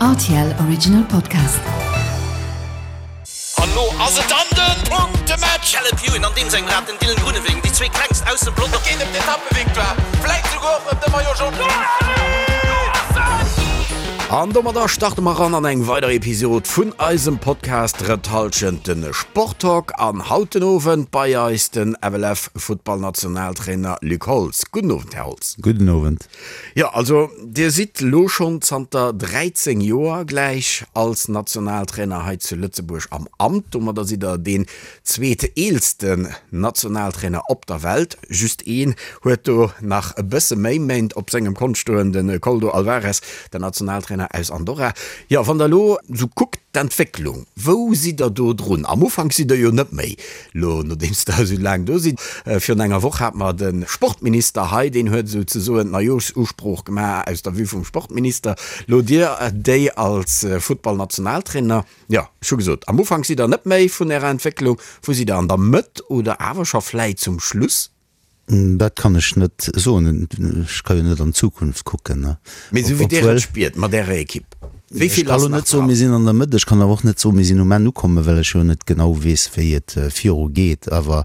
Rtl Original Podcast. An lo ass et dann den Punktematch! Caleb Ewan an deem sengem Rad, den Dylan Groenewegen, déi zwee klengst aus dem Pelotong. Et geet ëm d'Etappevictoire, vläit souguer och ëm de Maillot Jaune. An domadder starte mer ran an eng weider Episod vun eisem Podcast Drëtt Hallschent, de Sporttalk. An haut den Owend bei eis den FLF-Futtballnationaltrainer Luc Holtz. Gudden Owend, Här Holtz. Gudden Owend. Jo, also Dir sidd lo schonn zanter 13 Joer gläich als Nationaltrainer hei zu Lëtzebuerg am Amt. Domadder sidd Der deen zweeteelsten Nationaltrainer op der Welt. Just een huet do nach e bësse méi Méint op sengem Kont stoen, de Koldo Alvarez, den Nationaltrainer aus Andorra. Jo, wann Der elo sou kuckt, d'Entwécklung, wou sidd Der do drun? Am Ufank sidd Der jo net méi Lo, nodeems der esou laang do sidd, virun enger Woch hat mer de Sportminister hei, deen huet esou ze soen d'Neijoerschusprooch gemaach aus der Vue vum Sportminister. Lo Dir déi als Futtballnationaltrainer, jo, ech hu gesot, am Ufank sidd der net méi vun Ärer Entwécklung, wou sidd der, an der Mëtt oder awer scho vläit zum Schluss? Dat kann ech net soen. Ech ka jo net an d'Zukunft kucken. Mee esou wéi Dir et spiert mat Ärer Ekipp, wéi vill ass nach dran? Ech ka lo net soen, mir sinn an der Mëtt. Ech kann awer och net soen, mir sinn um Enn ukommen, well ech jo net genau weess, wéi et viru geet. Awer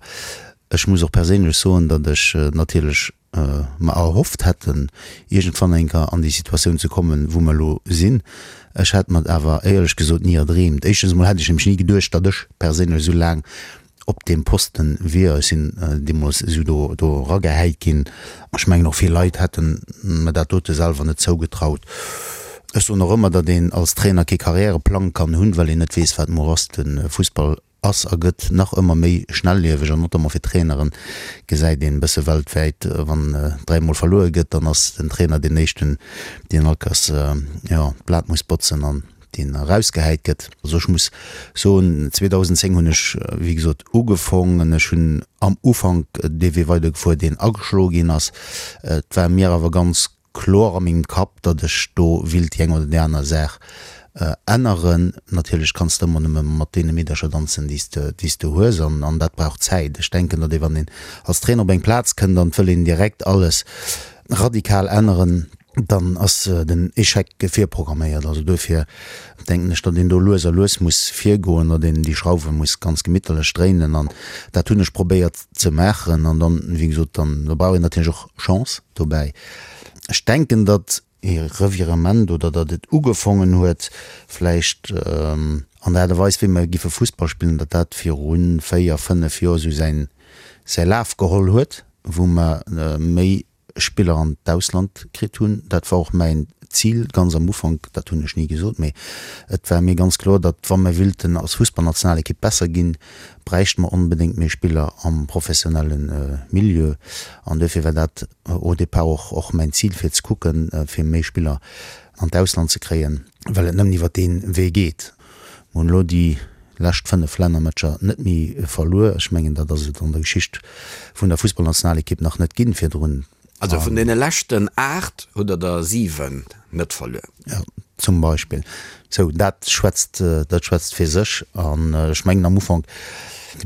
ech muss och perséinlech soen, datt ech natierlech mer erhofft hätten, iergendwann eng Kéier an déi Situatioun ze kommen, wou mer elo sinn. Ech hätt mer et awer éierlech gesot ni erdreemt. Éischtens emol hätt ech nämlech ni geduecht, datt ech perséinlech esou laang op deem Posten wier. Ech sinn deemools esou do do eragehäit ginn. Ech mengen och vill Leit hätten mer dat dote selwer net zougetraut. Ech soen och ëmmer, datt een als Trainer kee Karriäreplang kann hunn, well een net weess, wat muer ass. De Fussball ass a gëtt nach ëmmer méi schnellieweg an notamment fir Traineren gesäit een e bësse weltwäit, wann dräimol verluer gëtt, dann ass den Trainer deen éischten, deen all Kéiers, jo, d'Blat muss botzen an deen erausgehäit gëtt. Also ech muss soen, 2010 hunn ech, wéi gesot, ugefong an ech hunn am Ufank dee Wee weidergefuer, deen ageschloe ginn ass. Et war mir awer ganz kloer a mengem Kapp, datt ech do willt déi eng oder déi aner Saach änneren. Natierlech kanns de ëmmer nëmme mat deene Meedercher danzen, déi s de, déi s de hues an, an dat brauch Zäit. Ech denken, datt ee wann een als Trainer op eng Plaz kënnt an et wëll een direkt alles radikal änneren, dann ass den Échec virprogramméiert. Also duerfir denken ech, datt een do lues a lues muss virgoen, datt een déi Schrauwe muss ganz gemitterlech dréinen an dat hunn ech probéiert ze maachen. An dann, wéi gesot, dann da brauch een natierlech och Chance dobäi. Ech denken, datt ee Revirement oder datt et ugefongen huet vläicht an der Aart a Weis wéi mer giffe Fussball spillen, datt dat viru 4, 5 Joer esou säin säi Laf geholl huet, wou mer méi Spiller an d'Ausland kritt hunn. Dat war och mäin Zil ganz am Ufank, dat hunn ech ni gesot, mee et war mir ganz kloer, datt wa mir willten als Fussballnationalekipp besser ginn, bräichte mer onbedéngt méi Spiller am professionelle Milieu. An duerfir war dat au départ och och mäin Zil, fir ze kucken, fir méi Spiller an d'Ausland ze kréien, well et nëmmen iwwer dee Wee geet. Mer hunn elo déi lescht 5 Lännermatcher net méi verluer. Ech mengen, dat ass et an der Geschicht vun der Fussballnationalekipp nach net ginn virdrun. Also vun deene leschten 8 hutt der der 7 net verluer. Jo, zum Beispill. Sou, dat schwätzt, dat schwätzt fir sech. An ech mengen, am Ufank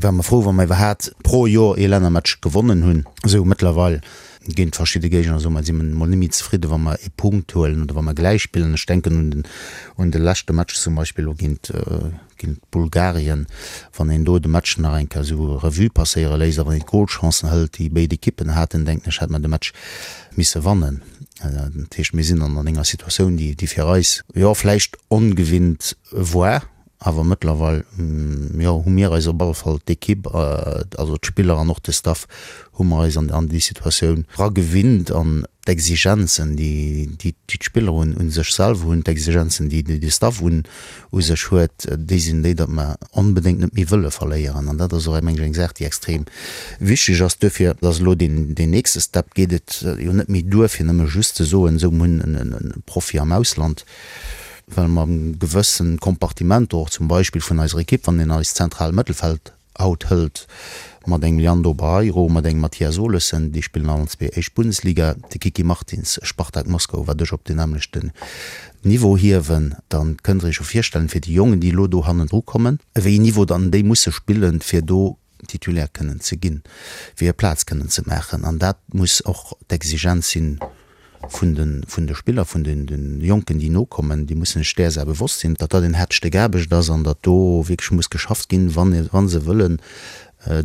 ware mer frou, wa mer iwwerhaat pro Joer ee Lännermatch gewonnen hunn. Sou, mëttlerweil Géint verschidde Géigner, soe mer, si mer emol net méi zefridde wa mer ee Punkt huelen oder wa mer gläich spillen. Ech denken un den, un de leschte Match zum Beispill elo géint, géint Bulgarien. Wann een do de Match nach eng Kéier esou Revue passéiere léisst a wann een d'Golchancen hëlt, déi béid Ekippen haten, denken ech, hätt mer de Match misse wannen. Dat heescht, mir sinn an enger Situatioun, déi, déi fir eis, jo, vläicht ongewinnt war. Awer mëttlerweil, jo, hu mir eis op alle Fall, d'Ekipp, also d'Spiller an och de Staff, hu mer eis an déi Situatioun eragewinnt an d'Exigenzen, déi d'Spiller un sech selwer hunn, d'Exigenzen, déi de Staff un sech huet, déi sinn déi, datt mer onbedéngt net méi wëlle verléieren. An dat ass och, meng ech, eng Saach, déi extrem wichteg ass. Duerfir ass elo deen nächste Step, geet et jo net méi duer, fir nëmme just ze soen, esou, mir hunn e Profi am Ausland, well mer gewëssen Kompartimenter och zum Beispill vun eiser Ekipp, wann een eist zentrale Mëttelfeld haut hëlt, mat engem Leandro Barreiro, mat engem Mathias Olesen, déi spillen allen zwee éischt Bundesliga, de Kiki Martins, Spartak Moskau, wat ech op deen nämmlechten Niveau hiewen, da kënnt Der Iech jo virstellen, fir déi Jongen, déi elo do hannendru kommen, wéi een Niveau dann déi musse spillen, fir do Titulaire kënnen ze ginn, fir hir Plaz kënnen ze maachen. An dat muss och d'Exigenz sinn. vun de, vun de Spiller, vun den, den Jonken, déi nokommen, déi mussen sech där Saach bewosst sinn, datt dat en haart Stéck Aarbecht ass an datt do wierklech muss geschafft ginn, wann, wa se wëllen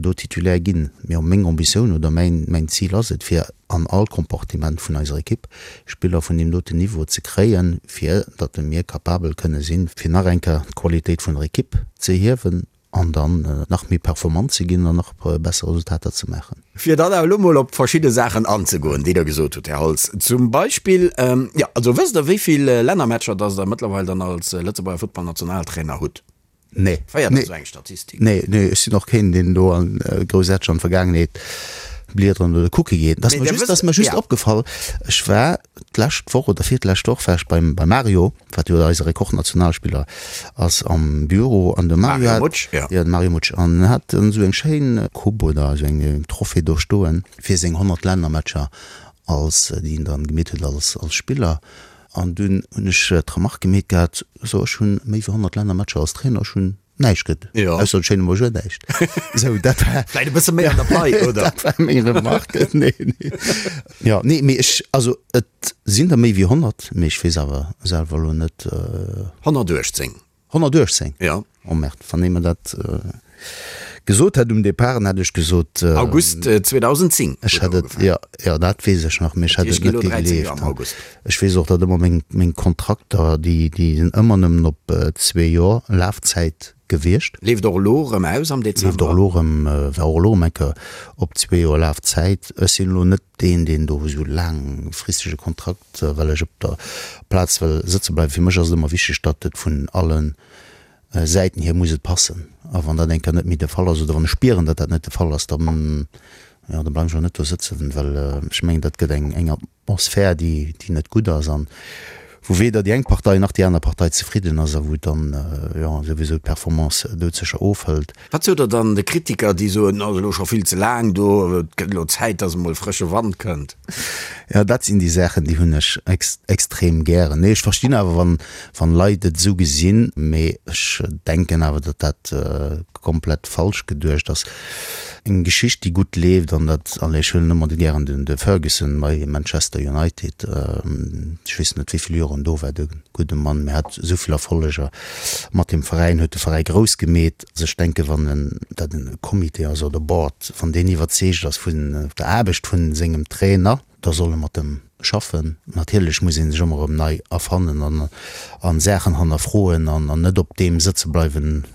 do Titulaire ginn. Mee meng Ambitioun oder mäin, mäin Zil ass et, fir an all Compartiment vun eiser Ekipp Spiller vun deem doten Niveau ze kréien, fir datt mir capabel kënne sinn, fir nach eng Kéier d'Qualitéit vun der Ekipp ze hiewen an dann nach méi performant ze ginn an nach besser Resultater ze maachen. Fir dann awer elo mol op verschidde Saachen anzegoen, déi Der gesot hutt, Här Holtz, zum Beispill, jo, also wësst Der, wéi vill Lännermatcher dass Der mëttlerweil dann als Lëtzebuerger Futtballnationaltrainer hutt? Nee. Féiert Der esou eng Statistik? Nee, nee, ech sinn och keen, deen do an groussaarteg an d'Vergaangenheet bliederen oder kucke geet. Et ass mer just, ass mer just opgefall, ech war d'lescht Woch oder virtlescht Woch war ech beim, beim Mario, wat jo eise Rekordnationalspiller ass, am Büro an de Mario hat, Mutsch, ja. Ja, de Mario Mutsch, an en hat dann esou eng schéin Coupe oder esou eng Trophée do stoen fir seng 100 Lännermatcher als, déi en dann gemeet huet als, als Spiller. An dunn hunn ech d'Remarque gemeet gehat, so ech hunn méi wéi 100 Lännermatcher als Trainer, ech hunn näischt kritt, ausser de schéine Bonjour näischt. Sou, dat war. Vläit e bësse méi an der Pai, oder? Dat war meng Remarque. Nee, nee. Jo, nee, mee ech, also et sinn der méi wéi 100, mee ech weess awer selwer elo net. 118. 118? Jo. Oh merde, wann ee mer dat gesot hätt um Depart, dann hätt ech gesot. August 2010 Ech hätt et, jo, jo, dat weess ech nach, mee ech hätt et net gegleeft. Ech weess och, datt ëmmer meng, meng Kontrakter, déi, déi sinn ëmmer nëmmen op zwee Joer Lafzäit gewiescht. Leeft och elo erëm aus am Dezember. Leeft och elo erëm, war och elo erëm eng Kéier op zwee Joer Lafzäit. Ech sinn elo net deen, deen do esou laangfristege Kontrakt. well ech op der Plaz wëll sëtze bleiwen. Fir mech ass et ëmmer wichteg, datt et vun alle Säiten hier muss et passen. A wann dat eng Kéier net méi de Fall ass oder wann ech spieren, datt dat net de Fall ass, da jo, da bleiwen ech och net do sëtzen, well ech mengen, dat gëtt eng eng Atmosphär, déi déi net gutt ass an wou weder déi eng Partei nach déi aner Partei zefridden ass a wou dann jo souwisou d'Performance doudsécher ofhëlt. Wat sot Der dann de Kritiker, déi soen, ass elo scho vill ze laang do, et gëtt elo Zäit, datt emol frësche Wand kënnt? Jo, dat sinn déi Saachen, déi hunn ech extrem gären. Nee, ech verstinn awer, wann, wann Leit et esou gesinn, mee ech denken awer, datt dat komplett falsch geduecht ass. Eng Geschicht, déi gutt leeft, an dat, allez, ech huelen ëmmer gären den de Ferguson bei Manchester United, ech weess net, wéi vill Joer en do war, de gudde Mann, mee hat esou vill Erfolleger mat deem Veräin, huet de Veräi grouss gemeet. Also ech denken, wann en, dat en Comité ass oder Board, wann deen iwwerzeegt ass vun der Aarbecht vun sengem Trainer, da soll e mat em schaffen. Natierlech muss ee sech ëmmer erëm nei erfannen an a Saachen hannerfroen an net op deem sëtze bleiwen,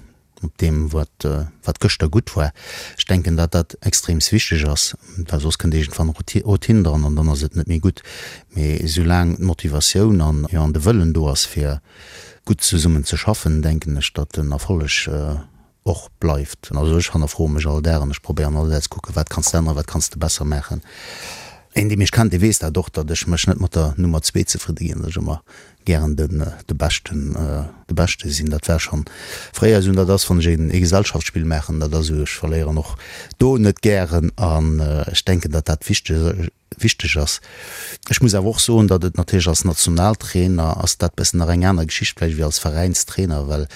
op deem wat wat gëschter gutt war. Ech denken, datt dat extreems wichteg ass, well soss kënnt iergendwann Routine dran an dann ass et net méi gutt. Mee soulaang d'Motivatioun an, jo, an de Wëllen do ass fir gutt zesummen ze schaffen, denken ech, datt den Erfolleg och bleift. Also ech hannerfroe mech all Dag an ech probéieren all Dag ze kucken, wat kanns de änneren, wat kanns de besser maachen. Een, dee mech kennt, dee weess dat och, datt ech mech net mat der Nummer zwee zefridde ginn, datt ech ëmmer gären den de Beschten de Beschte sinn. Dat war schonn fréier esou an dat ass, wann ech een ee Gesellschaftsspill maachen, dat ass esou, ech verléieren och do net gären an ech denken, datt dat wichteg wichteg ass. Ech muss awer och soen, datt et natierlech als Nationaltrainer ass dat bëssen nach eng aner Geschicht vläicht wéi als Veräinstrainer, well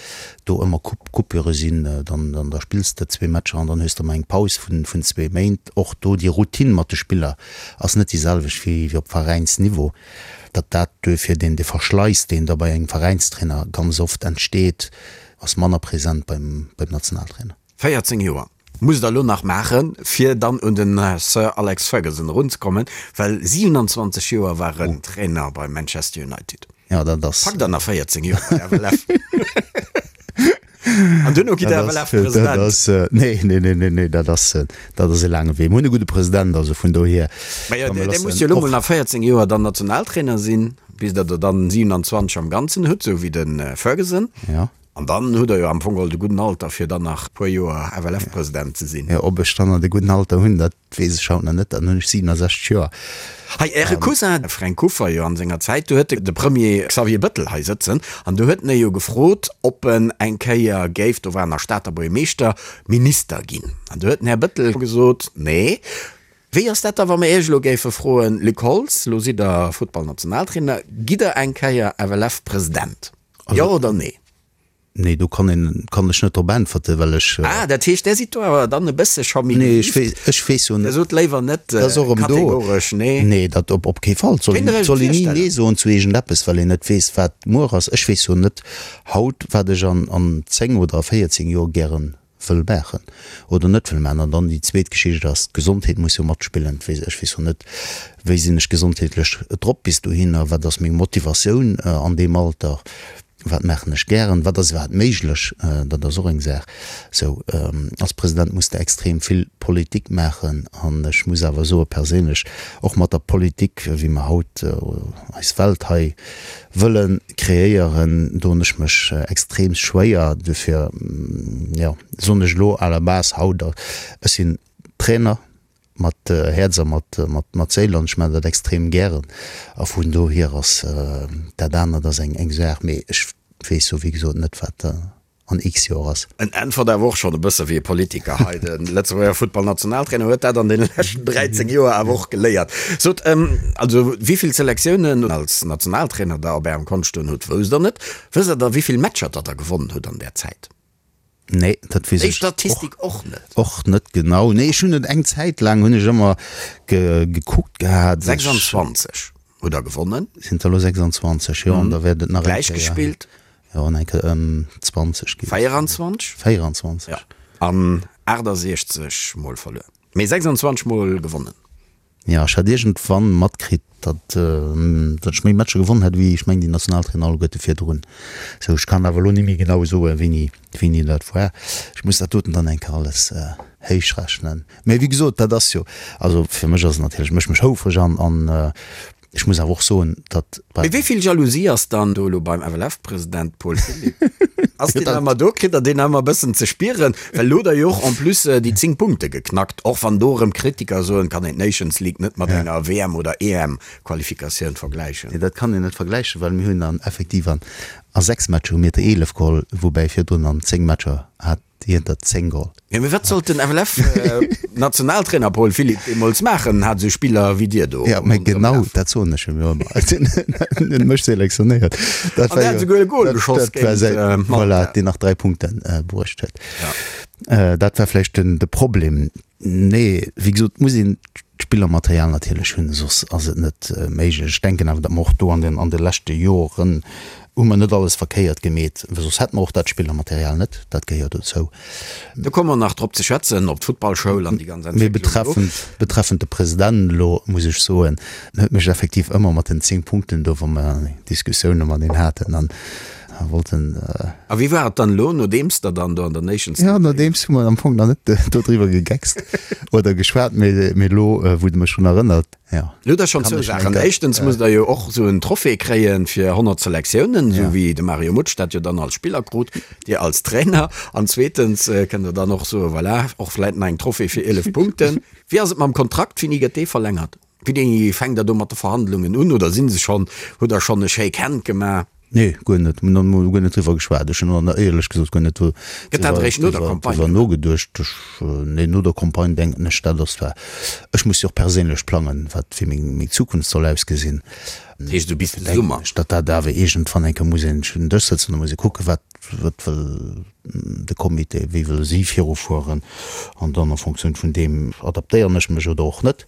do ëmmer Coupurë sinn, dann dann da spills de zwee Matcher an dann hues de ëmmer eng Paus vun vun zwee Méint. Och do déi Routine mat de Spiller ass net déi selwecht wéi wéi op Veräinsniveau. Datt dat duerfir deen dee Verschleiss, deen da bei engem Veräinstrainer ganz oft entsteet, ass manner present beim beim Nationaltrainer. 14 Joer musst der elo nach maachen, fir dann un den Sir Alex Ferguson erunzekommen, well 27 Joer war en Trainer bei Manchester United. Ja, dat ass. Packt der nach 14 Joer bei FLF? An duerno gitt der FLF-President? Dat ass, nee, nee, nee, nee, nee, dat ass, dat ass e laange Wee. Mir hunn e gudde President, also vun dohier. Mä jo, dee muss jo elo mol nach 14 Joer dann Nationaltrainer sinn, bis der der dann 27 am Ganzen hutt, esou wéi de Ferguson. Ja. An dann hutt der jo am Fong geholl de gudden Alter, fir dann nach e puer Joer FLF-President ze sinn. Jo, ob ech dann nach de gudden Alter hunn, dat weess ech haut nach net. Dann hunn ech 67 Joer. Hei, Äre Cousin, de Fränk Kuffer, jo an senger Zäit, do huet de Premier Xavier Bëttel hei sëtzen an do huet en e jo gefrot, ob en eng Kéier géif, do war en nach Stater Buergermeeschter, Minister ginn. An do huet den Här Bëttel gesot, Nee. Wéi ass dat da, wa mer Iech elo géife froen, Luc Holtz, elo sidd Der Futtballnationaltrainer, gitt Der eng Kéier FLF-President? Jo oder nee? Nee, do kann een, kann ech net drop äntwerten, well ech. Ah, dat heescht, Där sidd do awer dann e bësse scho méi Nee, ech weess, ech weess jo net. Der sot léiwer net kategoresch nee. Nee, dat op, op kee Fall. Soll een, soll een ni nee soen zu iergendeppes, well een net weess, wat muer ass. Ech weess jo net haut, wat ech an, an 10 oder a 14 Joer gären wëll maachen oder net wëll maachen. An dann déi zweet Geschicht ass, d'Gesondheet muss jo matspillen. Ech weess jo net, wéi sinn ech gesondheetlech drop bis dohinner, wat ass meng Motivatioun an deem Alter, wat maachen ech gären, wat ass iwwerhaapt méiglech, dat ass och eng Saach. Sou, als President muss de extrem vill Politik maachen an ech muss awer soe perséinlech, och mat der Politik, wéi mer haut eis Welt hei wëlle kreéieren, doen ech mech extrem schwéier. Dofir, jo, soen ech elo à la base haut, ech sinn Trainer mat Häerz a mat, mat Séil an ech maachen dat extrem gären a vun dohier ass dat anert ass eng, eng Saach, mee ech weess jo wéi gesot net, wat an x Joer ass. En äntwert awer och schonn e bësse wéi e Politiker hei. De Lëtzebuerger Futtballnationaltrainer huet dat an deene leschten 13 Joer awer och geléiert. Sot, also wéi vill Selektiounen als Nationaltrainer der op Ärem Kont stoen hutt, wousst der net. Wësst der da wéi vill Matcher datt der gewonnen hutt an där Zäit? Nee, dat weess ech. Déi Statistik och net? Och net genau. Nee, ech hunn et eng Zäit laang hunn ech ëmmer gekuckt gehat. 26 hutt der gewonnen. Sinn der elo 26, jo, an da wäert et nach eng Kéier. Gläich gespillt. Jo, an eng Kéier ëm 20 ginn. 24? 24. Jo, an 68 mol verluer. Mee 26 mol gewonnen. Jo, ech hat iergendwann matkritt, datt datt ech méi Matcher gewonnen hätt wéi, ech mengen, déi Nationaltrainer alleguerte virdrun. Sou, ech kann awer elo ni méi genau soen, wéini, wéini dat war. Ech muss dat doten dann eng Kéier alles héichrechnen. Mee wéi gesot, dat ass jo, also fir mech ass et natierlech, mécht mech houfreg an an Ech muss awer och soen, datt bei. Mee wéi vill Jalousie ass dann do elo beim FLF-President Paul Philipp? Ass deen nach ëmmer do? Kritt der deen nach ëmmer e bëssen ze spieren? Well elo hutt der jo och en plus déi 10 Punkte geknackt, och wann do erëm Kritiker soen, kann een d'Nations League net mat enger WM oder EM-Qualifikatioun vergläichen. Nee, dat kann een net vergläichen, well mir hunn dann effektiv an a 6 Matcher hu mir der 11 geholl, woubäi virdrun an 10 Matcher hat Hien der 10 geholl. Jo, mee wat sollt den FLF-Nationaltrainer Paul Philipp deemools maachen, hat esou Spiller wéi dir do. Jo, mee genau dat soen ech him jo ëmmer. En huet mech selektionéiert. Dat war jo. An der hat esouguer e Gol geschoss géint Malta. Voilà, deen nach 3 Punkte bruecht huet. Dat war vläicht de Problem. Nee, wéi gesot, muss een d'Spillermaterial natierlech hunn, soss ass et net méiglech. Ech denken awer, datt mer och do an den an de leschte Joren hu mer net alles verkéiert gemeet, well soss hätte mer och dat Spillermaterial net. Dat gehéiert dozou. Do komme mer nach drop ze schwätzen, op d'Futtballschoul an déi ganz Mee Entwécklung do. betreffend, betreffend de President elo muss ech soen, en huet mech effektiv ëmmer mat den 10 Punkten do, wa mer Diskussioune mat een haten, an Wollten. A wéi war et dann elo, nodeems der dann do an der Nations League. Jo, nodeems hu mer am Fong nach net dodriwwer gegeckst oder geschwat, mee elo, wou de mech drun erënnert, jo. Elo hutt der schonn zwou Saachen. Éischtens musst der jo och esou en Trophée kréie fir 100 Selektiounen, esou wéi de Mario Mutsch dat jo dann als Spiller krut, Dir als Trainer. An zweetens kënnt der dann och soen, voilà, och vläit nach eng Trophée fir 11 Punkten. Wéi ass et mam Kontrakt? Wéini gëtt dee verlängert? Wéini fänkt der do mat de Verhandlungen un oder si se schonn, hutt der schonn e Shake Hand gemaach? Nee, guer net. Mir hunn guer net driwwer geschwat. Ech hunn och éierlech gesot guer net Gëtt dat eréischt no der Campagne driwwer nogeduecht. Ech, nee, no der Campagne denken ech, dat ass zwar, ech muss jo och perséinlech plangen, wat wéi meng, meng Zukunft soll ausgesinn. Dat heescht esou bis de Summer? Denken ech, datt dat awer iergendwann eng Kéier muss een un den Dësch sëtzen, da muss ee kucken, wat, wat wëll de Comité, wéi wëlle si virufueren an dann en Fonctioun vun deem adaptéieren ech mech oder och net.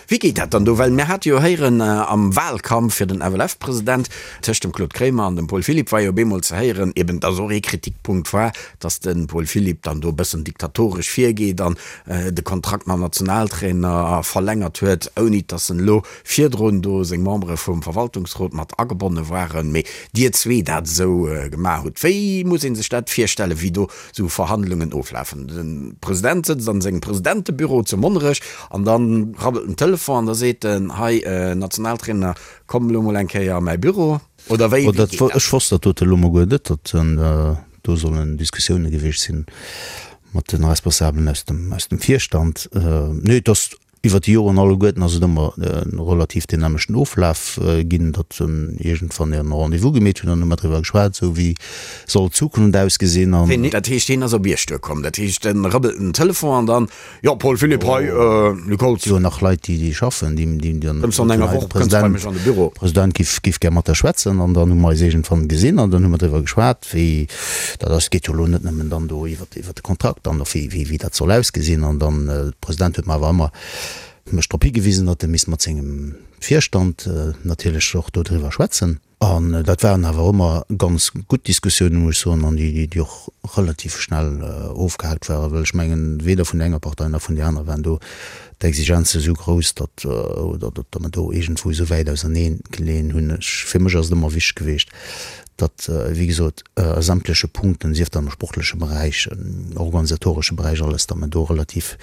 Wéi geet dat dann do? Well mir hate jo héieren am Wahlkampf fir den FLF-President, tëscht dem Claude Kremer an dem Paul Philipp war jo op eemol ze héieren, eben dass och ee Kritikpunkt war, dass de Paul Philipp dann do e bëssen diktatoresch virgeet an de Kontrakt mam Nationaltrainer verlängert huet, ouni dass en elo virdrun do seng Membere vum Verwaltungsrot mat agebonne waren, mee Dir zwee dat esou gemaach hutt. Wéi muss ee sech dat virstellen, wéi do esou Verhandlungen oflafen? De President sëtzt an sengem Presidentebüro zu Monnerech an da rabbelt den Telefon an da seet en, Hei Nationaltrainer, komm elo mol eng Kéier a mäi Büro. Oder wéi geet dat? Ech wosst dat dote elo mol guer net, datt do sollen Diskussioune gewiescht sinn mat de Responsabelen aus dem Virstand. Nee, et ass. Iwwer déi Joren alleguerten ass et ëmmer relativ deen nämmlechten Oflaf ginn, datt iergendwann en Rendez-vous gemeet hunn an hu mer driwwer geschwat, esou wéi soll d'Zukunft ausgesinn an. Dat heescht, hien ass op Iech duerkomm, dat heescht, e rëbbelt den Telefon an dann, Jo, Paul Philipp, hei, Luc Holtz. Si hunn nach Leit, déi schaffen, déi dann. Kënns du an enger Woch, kënns du bei mech an de Büro. President giff giff gär mat der schwätzen an dann hu mer eis iergendwann gesinn an dann hu mer driwwer geschwat, wéi dat ass. Et geet jo elo net nëmmen dann do iwwer. iwwer de Kontrakt an och wéi, wéi dat soll ausgesinn. An dann, de President huet mer awer ëmmer mech drop higewisen, datt e misst mat sengem Virstand natierlech och dodriwwer schwätzen. An dat waren awer ëmmer ganz gutt Diskussiounen, muss ech soen, an déi, déi och relativ schnell ofgehaakt waren, well ech mengen, weder vun der enger Partei nach vun där anerer waren do d'Exigenze esou grouss, datt, oder datt mer do iergendwou esou wäit ausernee geleeën hunn. Ech, fir mech ass et ëmmer wichteg gewiescht, datt, wéi gesot, a sämtleche Punkten, sief dat am sportleche Beräich, organisatoresche Beräich, alles, datt mer do relativ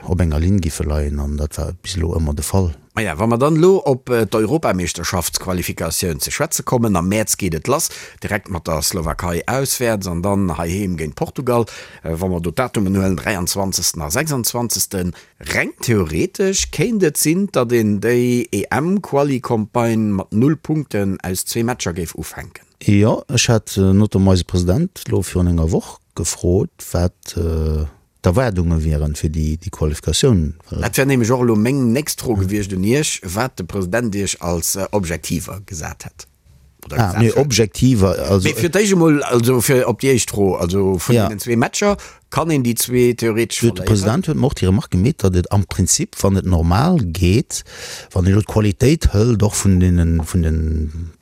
op enger Linn giffe leien an dat war bis elo ëmmer de Fall. Maja, wa mer dann elo op d'Europameeschterschaftsqualifikatioun ze schwätze kommen, am Mäerz geet et lass, direkt mat der Slowakei auswäerts an dann heiheem géint Portugal. Wa mer do d'Datumen huelen, 23. a 26. Reng theoretesch kéint et sinn, datt een déi EM-Quali-Campagne mat null Punkten aus zwee Matcher géif ufänken. Jo, ech hat notamment eise President elo virun enger Woch gefrot, wat d'Erwaardunge wieren fir déi Qualifikatioun. Dat wär nämlech och elo meng nächst Fro gewiescht un Iech, wat de President Iech als Objektiver gesat hätt. Ah, nee, Objektiver, also. Mee fir d'éischt emol, also fir op déi éischt Fro, also vun deenen zwee Matcher, kann een déi zwee theoretesch verléieren? De President huet mer och déi Remarque gemeet, datt et am Prinzip, wann et normal geet, wann een elo d'Qualitéit hëlt och vun deenen, vun den,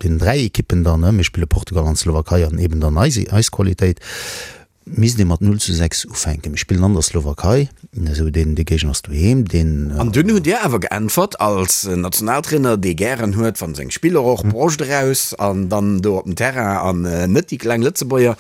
deenen 3 Ekippen dann, mir spille Portugal an d'Slowakei an eben dann eis, eis Qualitéit, Misst ee mat 0 zu 6 ufänken. Mir spillen an der Slowakei, esou deen dee Géigner ass doheem, deen. An dunn hutt Dir awer geäntwert, als Nationaltrainer, dee gären huet, wa seng Spiller och Broscht eraus an dann do op den Terrain an net déi kleng Lëtzebuerger,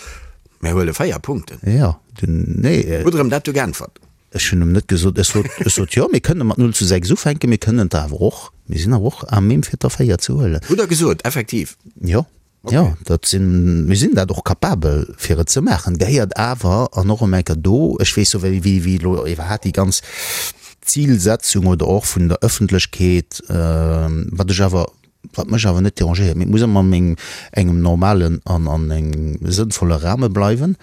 Mir huele 4 Punkten. Jo, dunn, nee. Hutt Der em dat du geäntwert? Ech hunn em net gesot, ech sot, ech sot, jo, mir kënne mat 0 zu 6 ufänken, mir kënnen et awer och, mir sinn awer och à même fir der 4 ze huelen. Hutt Der gesot, effektiv? Jo. Jo, dat sinn, mir sinn dat och capabel fir et ze maachen, gehéiert awer, an och ëm eng Kéier do, ech weess jo wéi, wéi, wéi elo iwwerhaapt déi ganz Zilsetzung oder och vun der Ëffentlechkeet, wat ech awer, wat mech awer net dérangéiert, mee et muss ëmmer an engem, engem normalen an an engem sënnvolle Rahme bleiwen,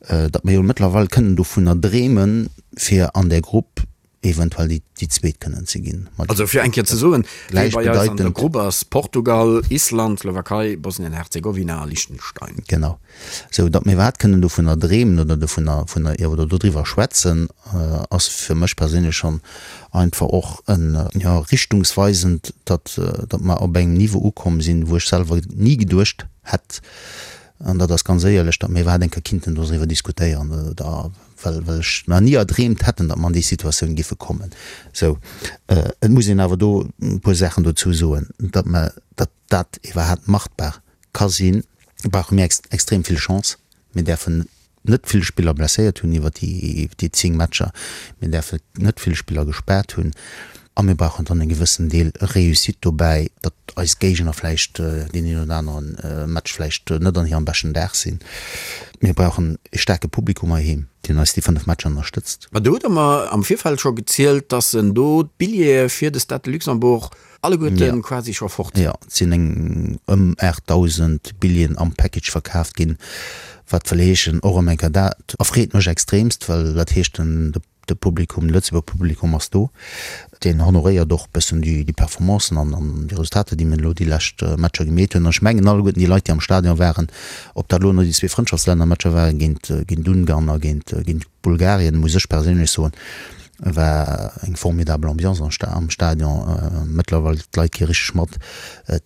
datt mir jo mëttlerweil kënnen dovunner dreemen, fir an där Grupp eventuell déi déi zweet kënnen ze ginn. Also fir eng Kéier ze soen, wee bei eis an der Grupp ass, Portugal, Island, Slowakei, Bosnien-Herzegowina a Liechtenstein. Genau. Sou datt mir iwwerhaapt kënnen dovunner dreemen oder dovunner vunner oder dodriwwer schwätzen, ass fir mech perséinlech schonn einfach och en, jo, richtungsweisend, datt datt mer op engem Niveau ukomm sinn, wou ech selwer ni geduecht hätt, an dat ass ganz éierlech, datt mir iwwerhaapt eng Kéier kinnten doriwwer diskutéieren oder well well ech mer ni erdreemt hätten, datt mer an déi Situatioun giffe kommen. Sou, et muss een awer do e puer Saachen dozou soen, datt mer, datt dat iwwerhaapt machbar ka sinn, brauche mir extrem vill Chance. Mir däerfen net vill Spiller blesséiert hunn iwwer déi déi 10 Matcher, mir däerfen net vill Spiller gespaart hunn a mir brauchen dann e gewëssen Deel Réussite dobäi, datt eis Géigner vläicht deen een oder anere Match vläicht net an hirem beschten Dag sinn. Mir brauchen e staarke Publikum heiheem, deen eis déi 5 Matcher ënnerstëtzt. Ma do hutt Der mer am Virfeld scho gezielt, dass en do d'Billjeeë fir de Stade de Luxembourg alleguerte quasi scho fort sinn. Jo, et sinn eng ëm 8.000 Billjeeën am Package verkaaft ginn, wat wëll heeschen, och erëm eng Kéier, dat erfreet mech extremst, well dat heescht, den De Publikum, de Lëtzebuerger Publikum ass do. Deen honoréiert och e bëssen déi Performancen an déi Resultater, déi mir elo déi lescht Matcher gemeet hunn. An ech mengen alleguerten déi Leit, déi am Stadion waren, ob dat elo no déi zwee Frëndschaftslännermatcher waren géint géint Ungarn a géint géint Bulgarien, muss ech perséinlech soen, war eng formidabel Ambiance am Stadion. Mëttlerweil, d'Leit gi richteg mat.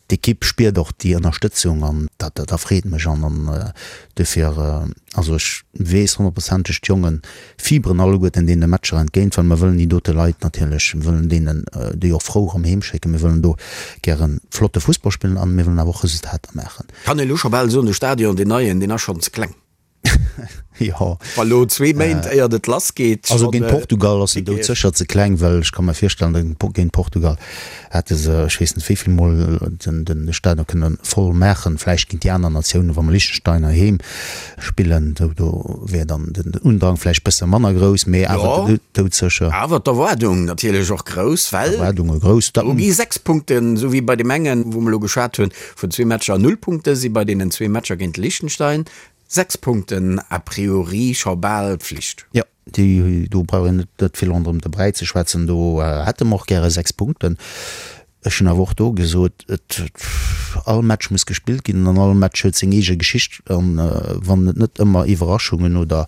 D'Ekipp spiert och déi Ënnerstëtzung an dat dat erfreet mech an an dofir, also ech weess honnertprozenteg, d'Jongen Fiberen alleguerten deene Matcher entgéint, well mer wëllen déi dote Leit natierlech, mir wëllen deenen déi och frou erëm heem schécken. Mir wëllen do gäre flotte Fussball spillen an mir wëllen awer och Resultater maachen. Kann een elo scho bal soen, de Stadion, deen neien, deen ass schonn ze kleng? Jo. Wa lo zwee Méint éiert et lass geet. Also géint Portugal ass en doudsécher ze kleng, well ech ka mer virstellen, datt géint Portugal hätte se ech weess net wéi vill Mol den de Stadion kënne voll maachen. Vläicht géint déi aner Natiounen, wa mer Liechtenstein heiheem spillen, do do wär dann den Undrang vläicht bësse manner grouss, mee awer doudsécher. Awer d'Erwaardung natierlech och grouss, well D'Erwaardunge grouss. Do gi 6 Punkten, esou wéi bei deem engen, wou mer elo geschwat hunn, vun zwee Matcher null Punkte si bei deenen zwee Matcher géint Liechtenstein 6 Punkten a priori scho bal Pflicht. Jo, déi do brauch een net vill ronderëm de Bräi ze schwätzen. Do hätte mer och gäre 6 Punkten. Ech hunn awer och do gesot, et all Match muss gespillt ginn an all Match huet seng eege Geschicht. An wann et net ëmmer Iwwerraschungen oder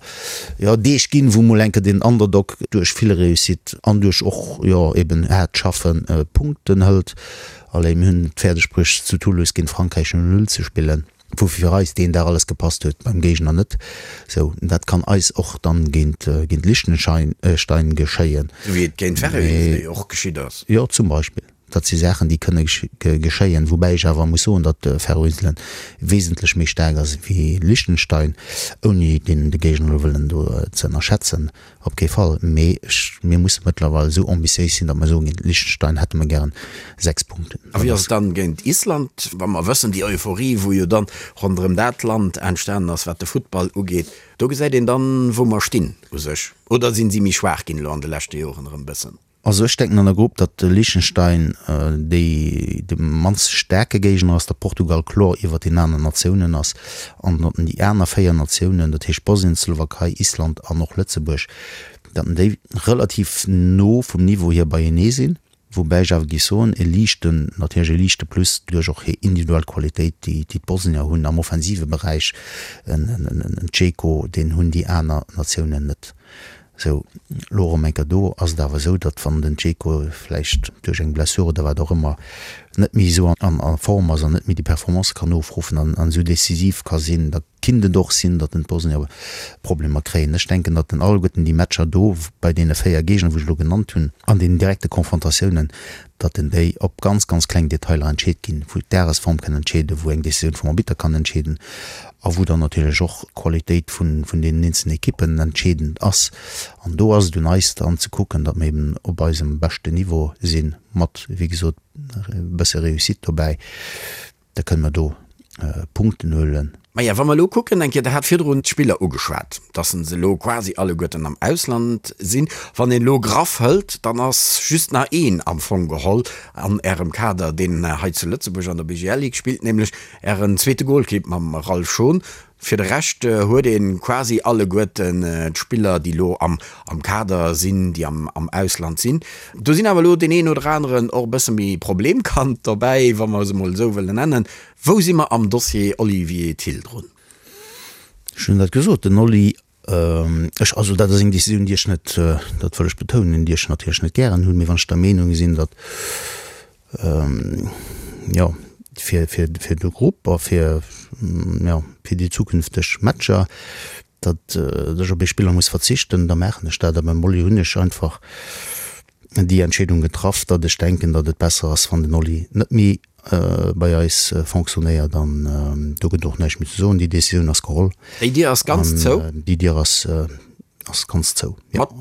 jo Deeg ginn, wou mol eng Kéier den Underdog duerch vill Réussite an duerch och jo eben haart Schaffen Punkten hëlt. Allez, mir hunn et fäerdeg bruecht zu Toulouse géint Frankräich 0, 0 ze spillen. Wou fir eis deen Dag alles gepasst huet, beim Géigner net. Sou, dat kann eis och dann géint géint Liechtenstein geschéien. Sou wéi et géint Färöer och geschitt ass. Jo, zum Beispill. Dat si Saachen, déi kënne geschéien. Woubäi ech awer muss soen, datt Färöer-Inselen wesentlech méi staark ass wéi Liechtenstein, ouni deen de Géigner elo wëllen do ze ënnerschätzen. Op kee Fall, mee ech, mir musse mëttlerweil esou ambitiéis sinn, datt mer soen, géint Liechtenstein hätte mer gären 6 Punkten. A wéi ass et dann géint Island, wa mer wëssen, déi Euphorie, wou jo dann ronderëm dat Land entstanen ass, wat de Futtball ugeet, do gesäit een dann, wou mer stinn u sech, oder sinn si méi schwaach ginn elo an de leschte Joren erëm e bëssen? Also ech denken an der Grupp, datt de Liechtenstein déi de mannst staarke Géigner ass, datt Portugal kloer iwwert den aneren Natiounen ass an datt déi aner 4 Natiounen, dat heescht Bosnien, Slowakei, Island an och Lëtzebuerg, datt déi relativ no vum Niveau hier beienee sinn. Woubäi ech awer géif soen, e liichten, natierlech e liichte Plus duerch och hir individuell Qualitéit, déi d'Bosnier hunn am offensive Beräich, en Dzeko, deen hunn déi aner Natiounen net. Sou, elo erëm eng Kéier do ass et awer esou, datt wann den Dzeko vläicht duerch eng Blessure oder wat och ëmmer net méi esou a Form ass an net méi déi Performance kann ofruffen an esou decisiv ka sinn, da kinnt et och sinn, datt den d'Bosnier Problemer kréien. Ech denken, datt en alleguerten déi Matcher do bei deene 4 Géigner, wou ech elo genannt hunn, an deenen direkte Konfrontatiounen, datt en déi op ganz, ganz kleng Detailer entscheet ginn, wou d'Dagesform kann entscheeden, wou eng Décisioun vum Arbitter kann entscheeden a wou dann natierlech och d'Qualitéit vun, vun deenen eenzelnen Ekippen entscheedend ass. An do ass et un eis dann ze kucken, datt mer eben op eisem beschten Niveau sinn, mat, wéi gesot, e bësse Réussite dobäi. Da kënne mer do Punkten huelen. Maja, wa mer elo kucken, eng Kéier, Der hat virdrun d'Spiller ugeschwat, dass se elo quasi alleguerten am Ausland sinn. Wann een elo graff hëlt, dann ass just nach een am Fong geholl an Ärem Kader, deen hei zu Lëtzebuerg an der BGL Ligue spillt, nämlech Ären zweete Golkipp mam Ralph Schon. Fir de Rescht huet ee quasi alleguerten d'Spiller, déi elo am Kader sinn, déi am Ausland sinn. Do sinn awer elo deen een oder aneren och e bësse méi Problemkand dobäi, wa mer se emol esou wëllen nennen. Wou si mer am Dossier Olivier Thill drun? Ech hunn dat gesot, den Oli, ech, also dat ass eng Decisioun, déi ech net, dat wëll ech betounen, déi ech natierlech net gären hunn, mee wann ech der Meenung sinn, datt jo, fir, fir, fir de Grupp a fir, jo, fir déi zukünfteg Matcher, datt ech op ee Spiller muss verzichten, da maachen ech dat. A beim Oli hunn ech einfach déi Entscheedung getraff, datt ech denken, datt et besser ass, wann den Oli net méi bei eis fonctionnéiert. An do gëtt och näischt méi ze soen. Déi Decisioun ass geholl. Déi Dier ass ganz zou? Déi Dier ass. Ass ganz zou. Mat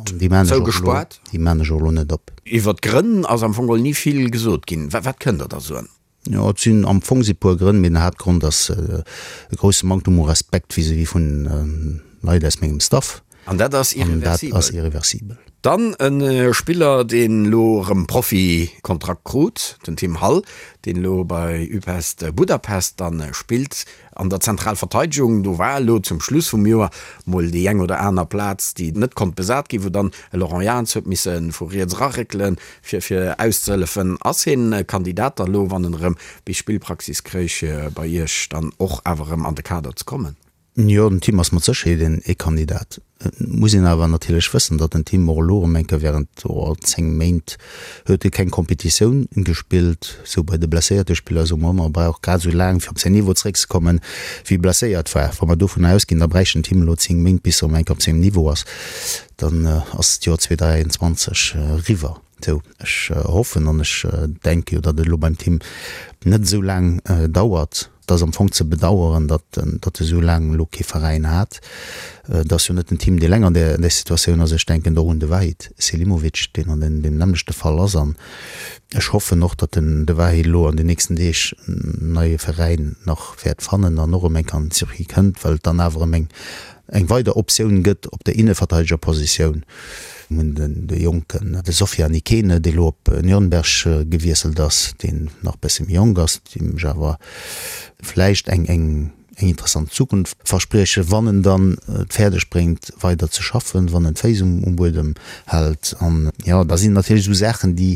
zougespaart? Déi maan ech och elo net op. Iwwer d'Grënn ass am Fong geholl ni vill gesot ginn. Wat kënnt Der da soen? Jo, et sinn am Fong si puer Grënn, mee den Haaptgrond ass e grousse Manktum u Respekt vis-à-vis vun Leit aus mengem Staff. An dat ass irreversibel? An dat ass irreversibel. Dann e Spiller, deen elo erëm Profikontrakt krut, den Tim Hall, deen elo bei Újpest Budapest dann spillt. An der Zentralverteidegung, do war elo zum Schluss vum Joer mol déi eng oder aner Plaz, déi net konnt besat ginn, wou dann e Laurent Jans huet misse vu riets eraréckelen, fir fir auszehëllefen. Ass hien e Kandidat da lo, wann en erëm bis Spillpraxis kréich, fir bei Iech dann och awer erëm an de Kader ze kommen? Jo, den Tim ass mat Sécherheet ee Kandidat. Et muss een awer natierlech wëssen, datt den Tim och elo erëm eng Kéier während 10 Méint huet e keng Competitioun gespillt. Sou bei de blesséierte Spiller soe mer ëmmer, e brauch grad esou laang fir op säin Niveau zeréckzekommen, wéi e blesséiert war. Wa mer dovunner ausginn, da bräicht den Tim elo 10 Méint bis e erëm eng Kéier op sengem Niveau ass, dann ass d'Joer 2023 eriwwer. Sou, ech hoffen an ech denke jo, datt et elo beim Tim net esou laang dauert. Et ass am Fong ze bedaueren, datt datt e sou laang elo kee Veräin hat. Et ass jo net den Tim, dee eleng an där an där Situatioun ass. Ech denken do och un de Vahid Selimovic, deen an deem nämmlechte Fall ass. An ech hoffen och, datt den de Vahid elo an den nächsten Deeg en neie Veräin nach wäert fannen an och erëm eng Kéier an den Circuit kënnt, well et dann awer erëm eng eng weider Optioun gëtt op der Inneverteidegerpositioun. Mir hunn de jonken, de Sofiane Ikene, dee lo op Nürnberg gewiesselt ass, deen nach e bësse méi jonk ass, deem ech awer vläicht eng eng eng interessant Zukunft verspriechen, wann en dann et fäerdeg bréngt weider ze schaffen, wann en d'Féiss um um Buedem hält. An jo, da sinn natierlech esou Saachen, déi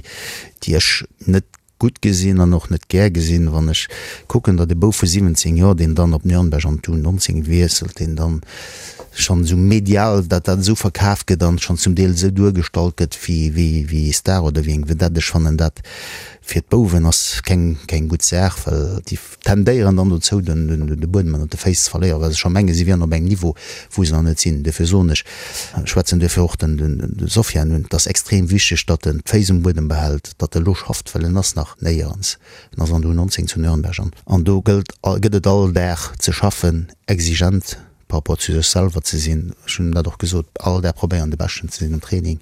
déi ech net gutt gesinn an och net gär gesinn, wann ech kucken, datt e Bouf vu 17 Joer, deen dann op Nürnberg an d'U 19 wiesselt, deen dann schonn esou medial, datt dat esou verkaf gëtt an schonn zum Deel esou duergestallt gëtt wéi, wéi, wéi ee Star oder wéi eng Vedette. Ech fannen dat fir d'Bouwen ass keng, keng gutt Saach, well déi tendéieren dann dozou, den, de Buedem ënnert de Féiss ze verléieren, well se scho mengen, si wieren op engem Niveau, wou se nach net sinn. Duerfir soen ech, schwätzen duerfir och den, de Sofiane un, et ass extrem wichteg, datt en d'Féiss um Buedem behält, datt e lo schafft, well en ass nach néierens, en ass an der U19 zu Nürnberg an, an do gëllt, gëtt et all Dag ze schaffen, exigent par rapport zu sech selwer ze sinn. Ech hunn dat och gesot, all Dag probéieren de Beschten ze sinn am Training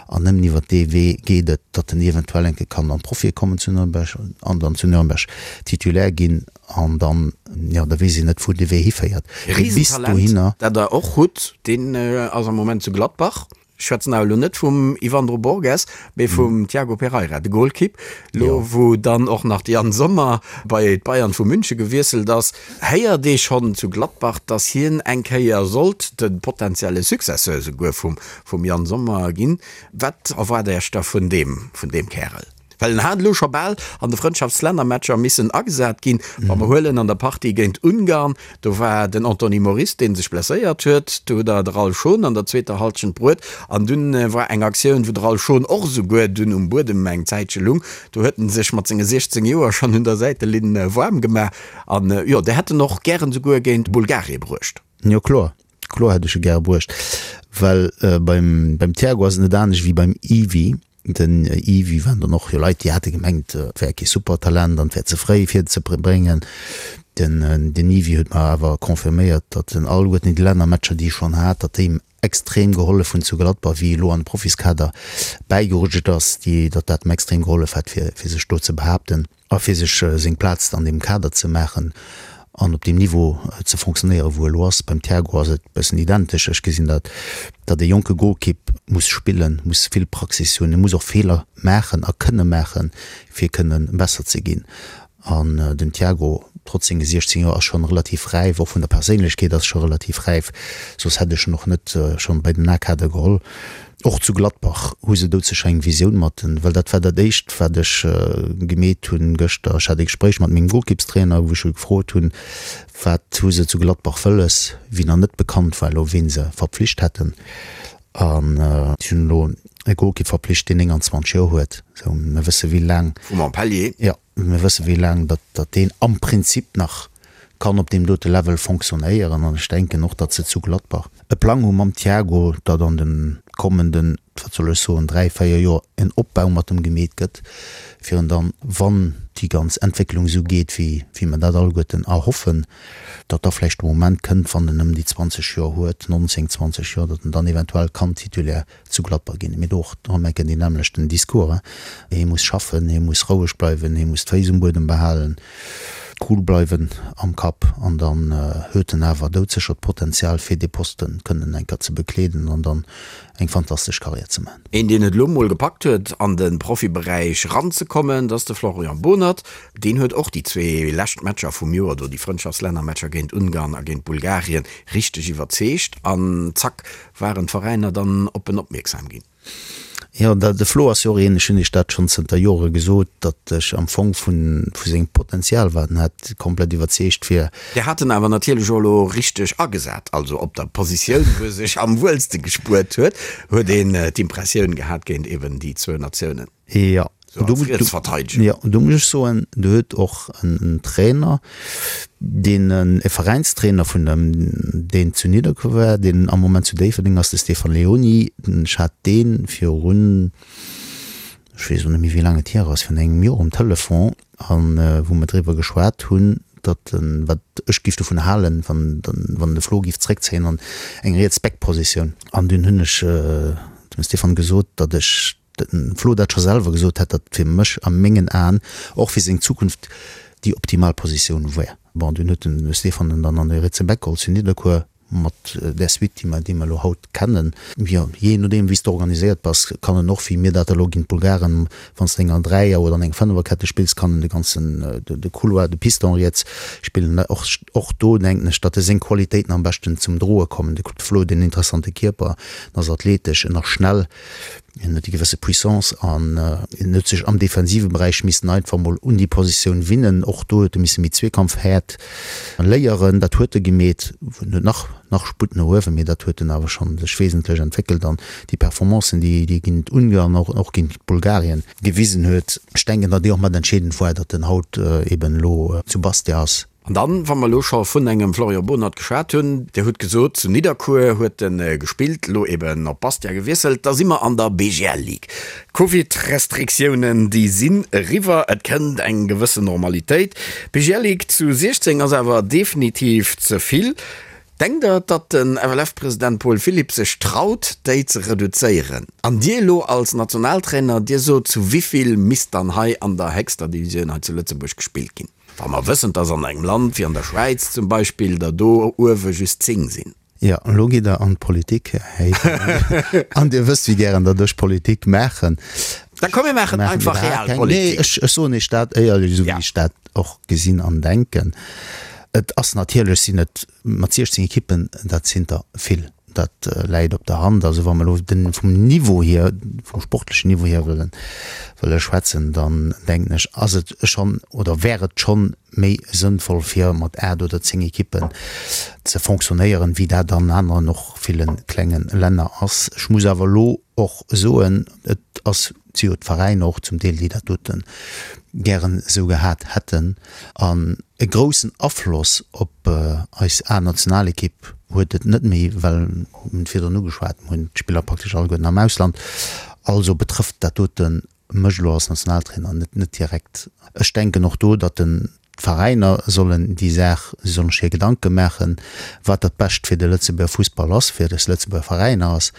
an nëmmen iwwert dee Wee geet et, datt en eventuell eng Kéier kann an d'Profie kommen zu Nürnberg an dann zu Nürnberg Titulaire ginn an dann, jo, da weess een net wou de Wee hiféiert. Mee bis Riesentalent, dohinner. dat der och hutt, deen ass am Moment zu Gladbach. Ech schwätzen awer elo net vum Yvandro Borges, mee vum Tiago Pereira, de Golkipp. Elo wou dann och nach de Yann Sommer bei d'Bayern vu Münche gewiesselt ass, héiert ee schonn zu Gladbach, datt hien eng Kéier sollt de potenzielle Successeur souguer vum Yann Sommer ginn. Wat erwaart Iech da vun deem Kärel? Well en hat elo scho bal an de Frëndschaftslännermatcher missen agesat ginn. Wa mer huelen an der Partie géint Ungarn, do war den Anthony Moris, dee sech blesséiert huet. Do hutt Der de Ralph Schon an der zweeter Hallschent bruet. An dunn war eng Aktioun, wou de Ralph Schon och esouguer dunn um Buedem eng Zäitche lung. Do huet en sech mat senge 16 Joer schonn un der Säitelinn waarm gemaach. An jo, Der hätt en och gären esouguer géint Bulgarie bruecht. Jo kloer, kloer hätt ech e gäre bruecht, well beim beim Thiago ass et net anescht wéi beim Yvi. Den Yvi waren dann och jo Leit, déi hate gemengt, et wär kee Supertalent an et wär ze fréi fir en ze bréngen. Den den Yvi huet mer awer confirméiert, datt en alleguerten déi Lännermatcher, déi e schonn hat, datt déi him extrem gehollef hunn zu Gladbach, wéi e lo an de Profiskader bäigerutscht ass, déi datt dat em extrem gehollef hätt fir fir sech do ze behaapten. A fir sech seng Plaz an deem Kader ze maachen an op deem Niveau ze fonctionnéieren, wou e elo ass. Beim Thiago ass et e bëssen identesch. Ech gesinn dat, datt e jonke Golkipp muss spillen, muss vill Praxis hunn, e muss och Feeler maachen a kënne maachen, fir kënne besser ze ginn. An den Thiago, trotz senge 16 Joer, ass schonn relativ räif, och vun der Perséinlechkeet ass scho relativ räif, soss hätt ech en och net schonn bei den A-Kader geholl. Och zu Gladbach hu se doudsécher eng Visioun mat en, well dat war dat éischt wat ech gemeet hunn gëschter. Ech hat e Gespréich mat mengem Golkippstrainer, wou ech e gefrot hunn, wat hu se zu Gladbach wëlles, wéi nach net bekannt war elo ween se verpflicht hätten. An si hunn elo e Golkipp verpflicht, deen 29 Joer huet. Sou, mir wësse wéi laang. Vu Montpellier. Jo. Mir wësse wéi laang datt datt deen am Prinzip nach kann op deem dote Level fonctionnéieren an ech denken och, datt se zu Gladbach e Plang hu mam Thiago, datt an de kommenden, wat soll ech soen, 3, 4 Joer en Opbau mat em gemeet gëtt, fir en dann, wann déi ganz Entwécklung esou geet, wéi wéi mer dat alleguerten erhoffen, datt da vläicht de Moment kënnt, wann en ëm déi 20 Joer huet, 19, 20 Joer, datt en dann eventuell kann Titulaire zu Gladbach ginn. Mee do och erëm enke deen nämmlechten Discours, hie muss schaffen, hie muss roueg bleiwen, hie muss d'Féiss um Buedem behalen, cool bleiwen am Kapp an dann huet en awer doudsécher d'Potenzial fir dee Posten kënnen eng Kéier ze bekleeden an dann eng fantastesch Karriär ze maachen. Een deen et elo mol gepackt huet an de Profiberäich ranzekommen, dat ass de Florian Bohnert. Deen huet och déi zwee lescht Matcher vum Joer do, déi Frëndschaftslännermatcher géint Ungarn a géint Bulgarien, richteg iwwerzeegt an zack waren d'Veräiner dann op en opmierksam ginn. Jo, de Flo ass jo och een, ech hunn Iech dat schonn zënter Jore gesot, datt ech am Fong vu sengem Potenzial, wat en hat, komplett iwwerzeegt wier. Dir hat en awer natierlech och elo richteg agesat, also op der Positioun, wou e sech am wuelste gespuert huet, huet een d'Impressioun gehat géint eben déi zwou Natiounen. Jo, do muss ech soen, do huet och en Trainer, deen e Veräinstrainer vun dem, deen zu Nidderkuer war, deen am Moment zu Déifferdeng ass, de Stefan Leoni. Ech hat dee virun, ech weess elo net méi wéi laang et hier ass, virun engem Joer um Telefon an wou mer driwwer geschwat hunn, datt en, wat ech giff dovun halen, wann wann de Flo giff zréckzéien an eng riets Back-Positioun. An dunn hunn ech dem Stéphane gesot, datt ech dem Flo dat scho selwer gesot hätt, datt fir mech a mengen Aen och fir seng Zukunft déi optimal Positioun wär. Bon, dunn huet den Stéphane en dann an de rietse Back geholl zu Nidderkuer. Mat där Suite, déi mer, déi mer elo haut kennen, jo, jee nodeem wéi s de organiséiert bass, kann en och, wéi mir dat elo géint d'Bulgaren, wann s de enger Dräier oder an eng Fënneferkette spills, kann en de ganzen, de Couloir, de Piston riets spillen. Och, och do denken ech, datt e seng Qualitéiten am beschten zum Droe kommen. De Flo huet en interessante Kierper, en ass athletesch, en ass schnell. Hien huet déi gewësse Puissance an hien huet sech am defensive Beräich missen einfach mol un déi Positioun winnen. Och do huet e misse méi Zweekampfhäert léieren. Dat huet e gemeet. En huet nach nach Sputt no uewen, mee dat huet en awer schonn sech wesentlech entwéckelt an déi Performancen, déi déi géint Ungarn an och géint Bulgarien gewisen huet, ech denken, datt déi och mat entscheedend war, datt en haut eben elo zu Bastia ass. An dann, wa mer elo scho vun engem Florian Bohnert geschwat hunn, Dir hutt gesot, zu Nidderkuer huet e gespillt, elo eben op Bastia gewiesselt, da si mer an der BGL Ligue. D'Covid-Restriktiounen, déi sinn eriwwer, et kënnt eng gewëssen Normalitéit. D'BGL Ligue zu 16 ass awer definitiv ze vill. Denkt Der, datt den FLF-President Paul Philipp sech traut, déi ze reduzéieren? An Dir elo als Nationaltrainer, Dir sot, zu wivill misst dann hei an der héchster Divisioun hei zu Lëtzebuerg gespillt ginn? Wa mer wëssen, dass an engem Land wéi an der Schwäiz zum Beispill der do uewe just 10 sinn. Jo, elo gitt Der an d'Politik, Här Heyden, an Dir wësst, wéi gären datt ech Politik maachen. Da komm, mir maachen einfach Realpolitik. Nee, ech soen Iech dat éierlech, esou wéi ech dat och gesinn an denken. Et ass natierlech, sinn et mat 16 Ekippen, dat sinn der vill. Dat läit op der Hand. Also wa mer elo den, vum Niveau hier, vum sportlechen Niveau hier wëllen, wëlle schwätzen, dann denken ech, ass et schonn oder wär et schonn méi sënnvoll fir mat 8 oder 10 Ekippen ze fonctionnéieren, wéi dat an aneren och ville klenge Länner ass. Ech muss awer elo och soen, et ass, si jo d'Veräiner och zum Deel, déi dat dote gären esou gehat hätten. An e groussen Afloss op eis A-Nationalekipp huet et net méi, well, mir hunn et virdrun ugeschwat, mir hunn d'Spiller praktesch alleguerten am Ausland. Also betrëfft dat dote mech elo als Nationaltrainer net net direkt. Ech denken och do, datt den d'Veräiner sollen déi Saach, si sollen sech hir Gedanke maachen, wat dat Bescht fir de Lëtzebuerger Fussball ass, fir des Lëtzebuerger Veräiner ass,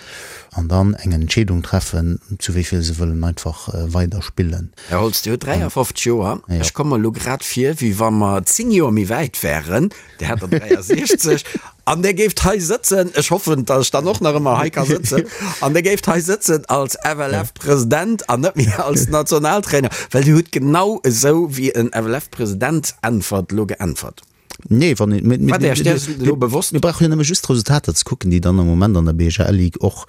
an dann eng Entscheedung treffen, zu wéi vill se wëllen einfach weider spillen. Här Holtz, Dir hutt 53 Joer. Ech komme mer elo grad vir, wéi wa mer 10 Joer méi wäit wären. Dir hätt der 63 an Dir géift hei sëtzen, ech hoffen, datt ech dann och nach ëmmer hei ka sëtzen, an Dir géift hei sëtzen als FLF-President an net méi als Nationaltrainer, well Dir hutt genau esou wéi en FLF-President äntwert elo geäntwert. Nee, wann een, mir, Wat Iech däers elo bewosst? Mir brauche jo nëmme just d'Resultater ze kucken, déi dann am Moment an der BHL-Ligue och.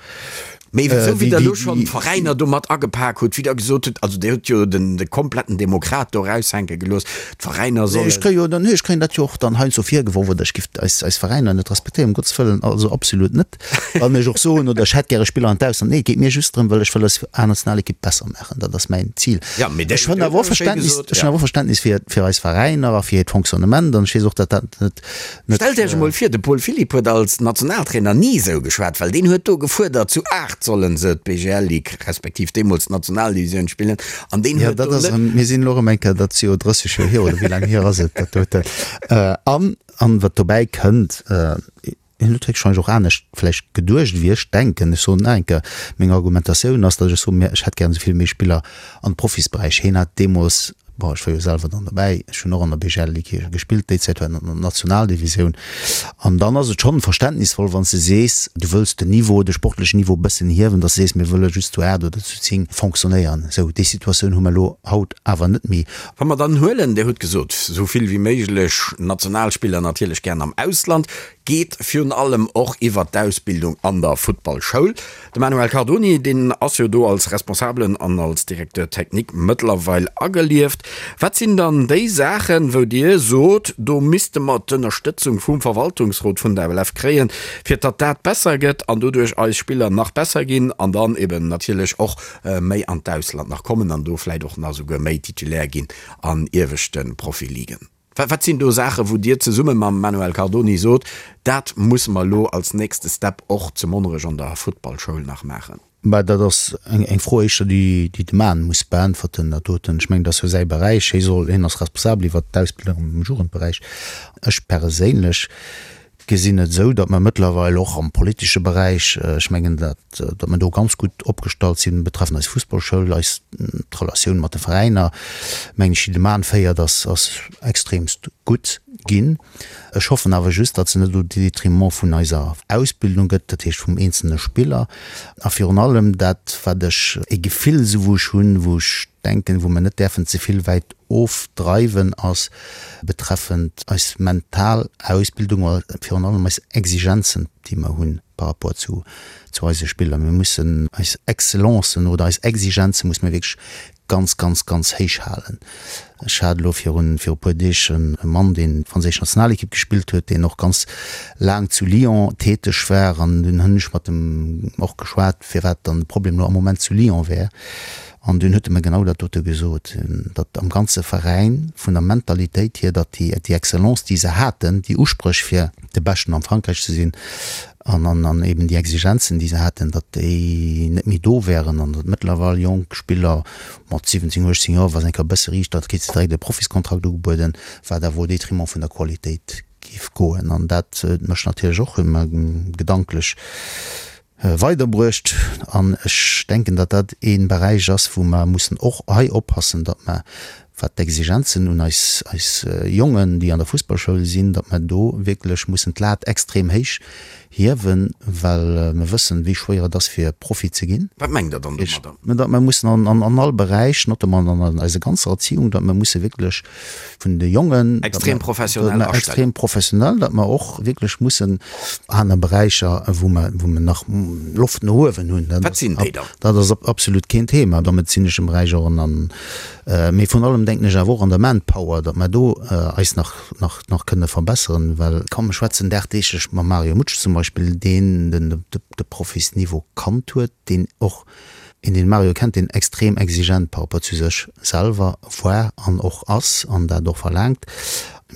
Mee esou wéi Der elo schonn d'Veräiner do mat agepak hutt, wéi Der gesot hutt, also Dir hutt jo den de kompletten Demokrat do eraushänke gelooss, d'Veräiner sollen. Ech kréie jo dann, ech kréien dat jo och dann heiansdo virgeworf, oder ech giff eis, eis Veräiner net respektéieren, um Gottes Wëllen, also absolut net. Wann ech och soen, oder ech hätt gäre Spiller an d'Ausland, nee, et geet mir just drëm, well ech wëll eis A-Nationalekipp besser maachen, dat ass mäin Zil. Ja, mee Ech hunn awer och Verständnis, ech hunn awer och Verständnis fir, fir eis Veräiner a fir hiert Fonctionnement an ech weess och, datt dat net, Stellt Iech emol vir, de Paul Philipp huet als Nationaltrainer ni esou geschwat, well deen huet do gefuerdert, zu 8 sollen se d'BGL-Ligue, respektiv deemools d'Nationaldivisioun spillen, an deen huet do net. Mir sinn elo erëm eng Kéier, dat ass jo 30 Joer hier, oder wéi laang hier ass et, dat doten? An, an wat dobäi kënnt, hien huet héchstwahrscheinlech och anescht vläicht geduecht wéi ech denken. Ech soen nach eng Kéier, meng Argumentatioun ass, datt ech soen, ech hätt gären esou vill méi Spiller an de Profisberäich. Hien hat deemools, bon, ech war jo selwer dann dobäi, ech hunn och an der BGL-Ligue gespillt, déi Zäit war an der Nationaldivisioun. An dann ass et schonn verständnisvoll, wann s de sees, du wëlls den Niveau, de sportlechen Niveau e bëssen hiewen, datt s de sees, mir wëlle just zu 8 oder zu 10 fonctionnéieren. Esou, déi Situatioun hu mer elo haut awer net méi. Wa mer dann huelen, Dir hutt gesot, esou vill wéi méiglech Nationalspiller natierlech gären am Ausland, geet virun allem och iwwert d'Ausbildung an der Futtballschoul. De Manuel Cardoni, deen ass jo do als Responsabelen an als Directeur technique mëttlerweil agelieft. Wat sinn dann déi Saachen, wou Dir sot, do misste mer d'Ënnerstëtzung vum Verwaltungsrot vun der FLF kréien, fir datt dat besser gëtt an doduerch eis Spiller nach besser ginn an dann eben natierlech och méi an d'Ausland nach kommen an do vläicht och nach esouguer méi Titulaire ginn an ieweschte Profiligen? Wat sinn do Saachen, wou Dir zesumme mam Manuel Cardoni sot, dat musse mer elo als nächste Step och zu Monnerech an der Futtballschoul nach maachen? Mä dat ass eng Fro éischter, déi de Mann muss beäntwerten, dat doten. Ech mengen, dat ass jo säi Beräich. Hie soll, hien ass responsabel iwwert d'Ausbildung am Jugendberäich. Ech perséinlech gesinn et esou, datt mer mëttlerweil och am politesche Beräich, ech mengen, datt, datt mer do ganz gutt opgestallt sinn betreffend eis Fussballschoul, eis, d'Relatioun mat de Veräiner, mengen ech, déi de Mann féiert, ass, ass extremst gutt ginn. Ech hoffen awer just, datt se net au détriment vun eiser Ausbildung gëtt, dat heescht vum eenzelne Spiller. A virun allem dat, wat ech, e Gefill esou wou ech hunn, wou ech denken, wou mer net däerfen ze vill wäit ofdreiwen, ass betreffend eis mental Ausbildung a virun allem eis Exigenzen, déi mer hunn par rapport zu zu eise Spiller. Mir mussen eis Excellencen oder eis Exigenze musse mir wierklech ganz, ganz, ganz héich halen. Ech hat elo virun viru puer Deeg e Mann, deen d'franséisch Nationalekipp gespillt huet, deen och ganz laang zu Lyon täteg war an dunn hunn ech mat em och geschwat, firwat dann de Problem elo am Moment zu Lyon wär. An dunn huet e mer genau dat dote gesot, datt am ganze Veräin vun der Mentalitéit hier, datt déi déi Excellence, déi se haten, déi Uspréch fir de Beschten am Frankräich ze sinn, an an eben déi Exigenzen, déi se haten, datt déi net méi do wären an datt mëttlerweil jonk Spiller mat 17, 18 Joer, wa se eng Kéier e bësse riicht, da kritt se direkt e Profiskontrakt ugebueden, wat awer au détriment vun der Qualitéit géif goen. An dat huet mech natierlech och ëmmer gedanklech weiderbruecht. An ech denken, datt dat ee Beräich ass, wou mer mussen och hei oppassen, datt mer, wat d'Exigenzen un eis, eis Jongen, déi an der Fussballschoul sinn, datt mer do wierklech mussen d'Lat extrem héich hiewen, well mer wëssen, wéi schwéier et ass, fir Profi ze ginn. Wat mengt Der dann domadder? Datt mer mussen an, an all Beräich, notamment an eiser ganzer Erziehung, datt mer musse wierklech vun de Jongen, Extrem professionell astellen. Extrem professionell, datt mer och wierklech mussen aner Beräicher, wou mer, wou mer nach Loft no uewen hunn. Wat sinn déi dann? Dat ass absolut keen Thema. Am medezineschen Beräich och an, mee vrun allem denken ech awer och an der Manpower, datt mer do eis nach, nach, nach kënne verbesseren, well komm, ech schwätzen dagdeeglech mam Mario Mutsch zum Beispill, deen den, de Profisniveau kannt huet, deen och een deen Mario kennt, deen extrem exigent par rapport zu sech selwer war an och ass an dat och verlaangt.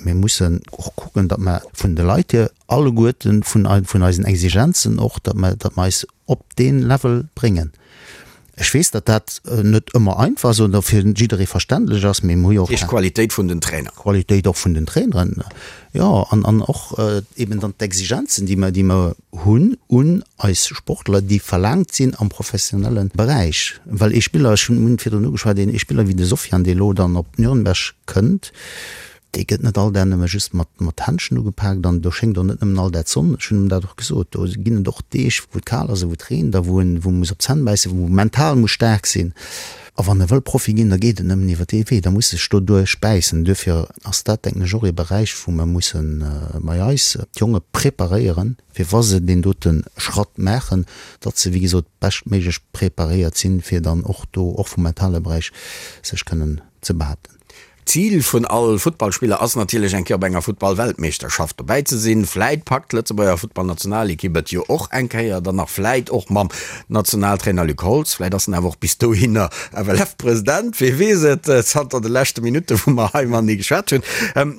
Mir mussen och kucken, datt mer vun de Leit hier alleguerten, vun vun eisen Exigenzen och, datt mer, datt mer eis op dee Level bréngen. Ech weess, datt dat net ëmmer einfach ass oder fir jidderee verständlech ass, mee mir hu jo och. Heescht Qualitéit vun den Trainer. Qualitéit och vun den Traineren, jo, an an och eben dann d'Exigenzen, déi mer, déi mer hunn un eis Sportler, déi verlaangt sinn am professionelle Beräich. Well ee Spiller, ech hunn virdrun ugeschwat, een Spiller wéi de Sofiane, dee elo dann op Nürnberg kënnt, Dee gëtt net all Dag nëmme just mat mat Händschen ugepaakt an do schéngt och net nëmmen all Dag d'Sonn. Ech hunn em dat och gesot, do ginn et och Deeg, wou et kal ass a wou et reent a wou en wou e muss op d'Zänn bäissen, wou e mental muss staark sinn. A wann e wëll Profi ginn, da geet et nëmmen iwwer dee Wee, da muss e sech doduerch bäissen. Duerfir ass dat, denken ech, och ee Beräich, wou mer musse bei eis d'Jonge preparéieren, fir wa se deen dote Schratt maachen, datt se, wéi gesot, beschtméiglech preparéiert sinn, fir dann och do, och vum mentale Beräich, sech kënnen ze behaapten. D'Zil vun all Futtballspiller ass natierlech eng Kéier op enger Futtballweltmeeschterschaft dobäi ze sinn. Vläit packt d'Lëtzebuerger Futtballnationalekipp et jo och eng Kéier, dann nach vläit och mam Nationaltrainer Luc Holtz. Vläit ass en awer och bis dohinner FLF-President, wee weess et, zanter de leschte Minutte wou mer hei matenee geschwat hunn.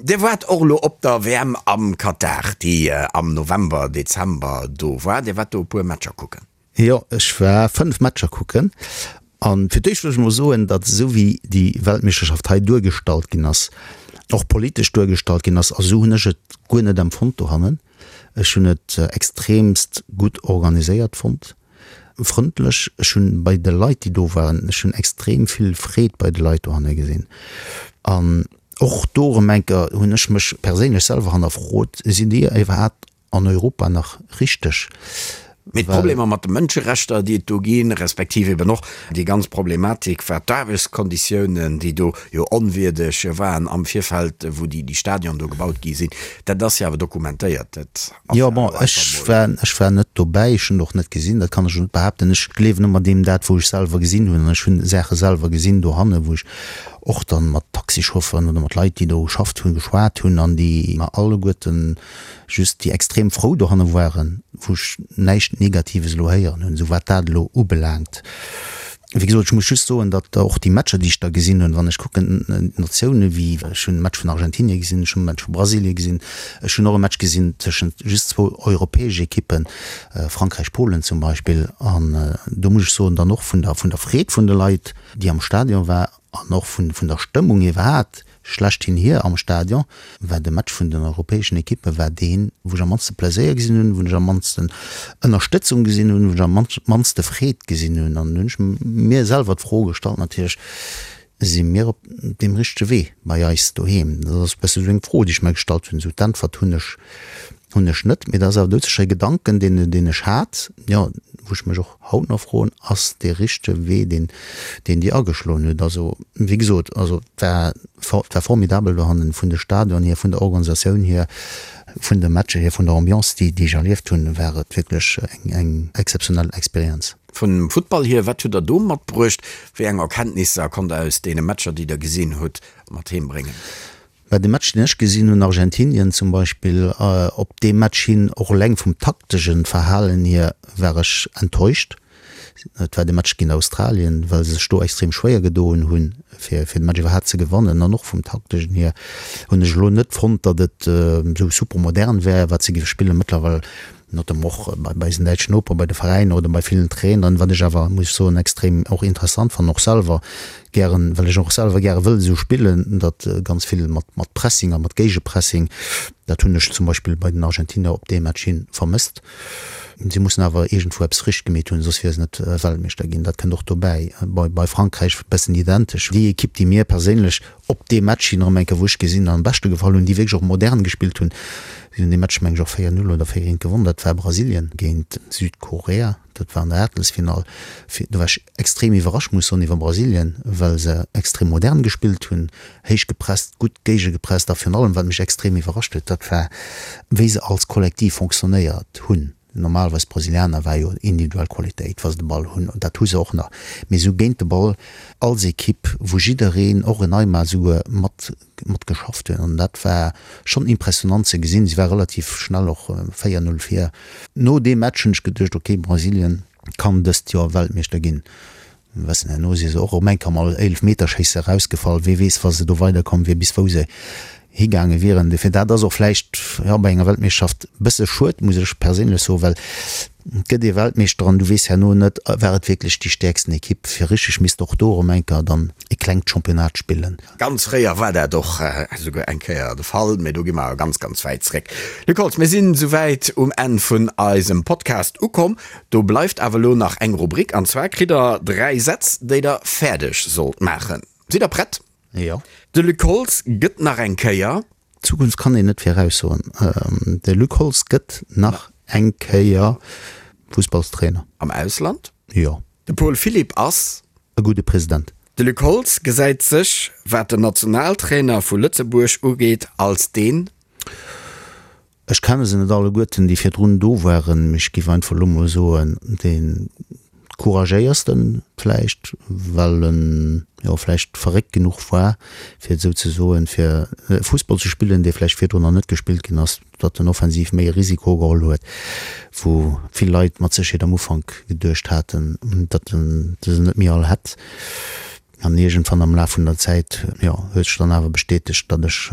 Dir waart och elo op der WM am Katar, déi am November, Dezember do war. Dir waart do e puer Matcher kucken. Jo, ech war 5 Matcher kucken. An fir d'éischt wëll ech mol soen, datt esou wéi déi Weltmeeschterschaft hei duergestallt ginn ass, och politesch duergestallt ginn ass, a sou hunn ech et guer net empfonnt dohannen. Ech hunn et extremst gutt organiséiert fonnt, frëndlech. Ech hunn bei de Leit, déi do waren, ech hunn extrem vill Freed bei de Leit dohanne gesinn. An och do erëm eng Kéier hunn ech mech perséinlech selwer hannerfrot, Sinn déi iwwerhaapt an Europa nach richteg. Mee d'Problemer mat de Mënscherechter, déi et do ginn, respektiv eben och déi ganz Problematik wat d'Aarbechtskonditiounen, déi do jo onwierdeg waren am Virfeld, wou déi Stadion do gebaut gi sinn, dat ass jo awer dokumentéiert. Dat ass jo awer einfach mol. Jo, bon, ech war net dobäi, ech hunn et och net gesinn, dat kann ech och net behaapten. Ech gleewen ëmmer deem dat, wou ech selwer gesinn hunn. An ech hunn Saache selwer gesinn dohanne, wou ech och dann mat Taxichauffeuren oder mat Leit, déi do geschafft hunn, geschwat hunn an déi mer alleguerten just déi extrem frou dohanne waren, wou ech näischt Negatives elo héieren hunn, esou wat dat elo ubelaangt. Wéi gesot, ech muss just soen, datt och déi Matcher, déi ech da gesinn hunn, wann ech kucken, Natioune wéi, ech hunn e Match vun Argentinie gesinn, ech hunn e Match vu Brasilie gesinn, ech hunn och e Match gesinn tëschent just zwou europäesch Ekippen, Frankräich, Polen zum Beispill, an do muss ech soen, dann och vun der, vun der Freed vun de Leit, déi am Stadion war, an och vun, vun der Stëmmung iwwerhaapt, Schlechthin hier am Stadion war de Match vun den europäeschen Ekippe war deen, wou ech am mannste Pleséier gesinn hunn, wou ech am mannsten Ënnerstëtzung gesinn hunn, wou ech am mannste Freed gesinn hunn. An hunn ech mir selwer d'Fro gestallt natierlech, Si mir op deem richtege Wee bei eis doheem? Dat ass e bësse sou eng Fro, déi ech mer gestallt hunn. Esou d'Äntwert hunn ech hunn ech net, mee dat ass awer doudsécher e Gedanken, deen deen ech hat, jo, wou ech mech och haut nach froen, ass dee richtege Wee, deen deen Dir ageschloen hutt. Also, wéi gesot, also et war et war formidabel dohannen, vun de Stadion hier, vun der Organisatioun hier, vun de Matcher hier, vun der Ambiance, déi déi ech erlieft hunn, war et wierklech eng eng exzeptionell Experienz. Vum Futtball hier, wat hutt Der do matbruecht? Wéi eng Erkenntnisser konnt Der aus deene Matcher, déi Der gesinn hutt, mat heem bréngen? Bei de Match deen ech gesinn hunn, Argentinien zum Beispill, op dee Match hin, och eleng vum taktegen Verhalen hier, war ech enttäuscht. Et war de Match géint Australien, well se sech do extrem schwéier gedoen hunn, fir fir de Match iwwerhaapt ze gewannen. An och vum taktegen hier hunn ech elo net fonnt, datt et esou super modern wär, wat se géife spillen. Mëttlerweil notamment och bei eisen däitschen Noper, bei de Veräiner oder bei villen Traineren, wat ech awer, muss ech soen, extrem och interessant fannen, och selwer gären, well ech och selwer gäre wëll esou spillen, datt ganz vill mat mat Pressing a mat Géigepressing, dat hunn ech zum Beispill bei den Argentinier op dee Match hi vermësst. Si mussen awer iergendwou eppes richteg gemeet hunn, soss wiere se net Weltmeeschter ginn. Dat kënnt och dobäi. Bei bei Frankräich e bëssen identesch. Déi Ekipp, déi mir perséinlech op dee Match hin erëm eng Kéier, wou ech gesinn, am beschte gefall hunn, déi wierklech och modern gespillt hunn, si hunn dee Match, meng ech, och 4, 0 oder 4, 1 gewonnen, dat war Brasilien géint Südkorea, dat war an der Aachtelsfinall. Do war ech extrem iwwerrascht, muss soen, iwwer Brasilien, well se extrem modern gespillt hunn, héich gepresst, gutt géigegepresst a virun allem, wat mech extrem iwwerrascht huet, dat war, wéi se als Kollektiv fonctionnéiert hunn. Normalerweis d'Brasilianer war jo individuell Qualitéit wa se de Ball hunn, an dat hu se och nach, mee esou géint de Ball als Ekipp, wou jiddereen, och en Neymar esouguer, mat mat geschafft huet an dat war schonn impressionant ze gesinn. Si war relativ schnell och 4, 0 vir. No deem Match hunn ech geduecht, ok Brasilien kann dëst Joer Weltmeeschter ginn. Wessen, herno si se och erëm eng Kéier am Eelefmeterschéisse erausgefall. Wee weess, wa se do weiderkomm wier, bis wou se higaange wieren. Dofir, dat ass och vläicht, jo, bei enger Weltmeeschterschaft e bësse schued, muss ech perséinlech soen, well et gëtt ee Weltmeeschter an du weess herno net, war et wierklech déi stäerksten Ekipp. Fir richteg misst och do erëm eng Kéier dann e klengt Championnat spillen. Ganz fréier war dat och esouguer eng Kéier de Fall, mee do gi mer ganz, ganz wäit zréck. Luc Holtz, mir sinn esouwäit um Enn vun eisem Podcast ukomm. Do bleift awer elo nach eng Rubrik, an zwar kritt der 3 Sätz, déi der fäerdeg sollt maachen. Sidd der prett? Jo. De Luc Holtz gëtt nach eng Kéier. D'Zukunft kann een net viraussoen. De Luc Holtz gëtt nach eng Kéier Fussballstrainer. Am Ausland? Jo. De Paul Philipp ass. E gudde President. De Luc Holtz gesäit sech, wat den Nationaltrainer vu Lëtzebuerg ugeet, als deen. Ech kenne se net alleguerten, déi virdrun do waren, mee ech géif einfach elo mol soen, dee couragéiersten vläicht, well en jo vläicht verréckt genuch war, fir et esou ze soen, fir Fussball ze spillen, dee vläicht virdrun nach net gespillt ginn ass, datt en offensiv méi e Risiko geholl huet, wou vill Leit mat Sécherheet am Ufank geduecht haten, datt en se net méi all hätt. An iergendwann am Laf vun der Zäit, jo, huet sech dann awer bestätegt, datt ech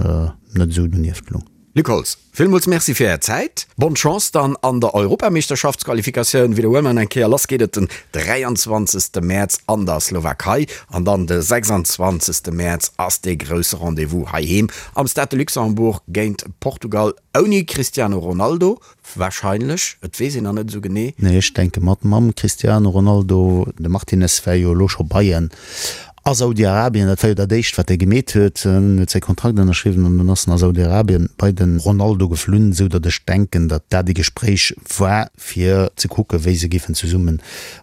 net esou donieft lung. Luc Holtz, villmools Merci fir Är Zäit. Bonne Chance dann an der Europameeschterschaftsqualifikatioun. Widderhuele mer eng Kéier, lass geet et den 23. Mäerz an der Slowakei an dann de 26. Mäerz ass dee grousse Rendez-vous heiheem am Stade de Luxembourg géint Portugal ouni Cristiano Ronaldo. Wahrscheinlech, et weess een nach net esou genee. Nee, ech denke mat mam Cristiano Ronaldo. De Martinez war jo elo scho bei en a Saudi-Arabien. Dat war jo dat éischt, wat e gemeet huet. En huet säi Kontrakt ënnerschriwwen an dann ass en a Saudi-Arabien bei de Ronaldo geflunn, esou datt ech denken, datt dat e Gespréich war, fir ze kucken, wéi se géifen zesumme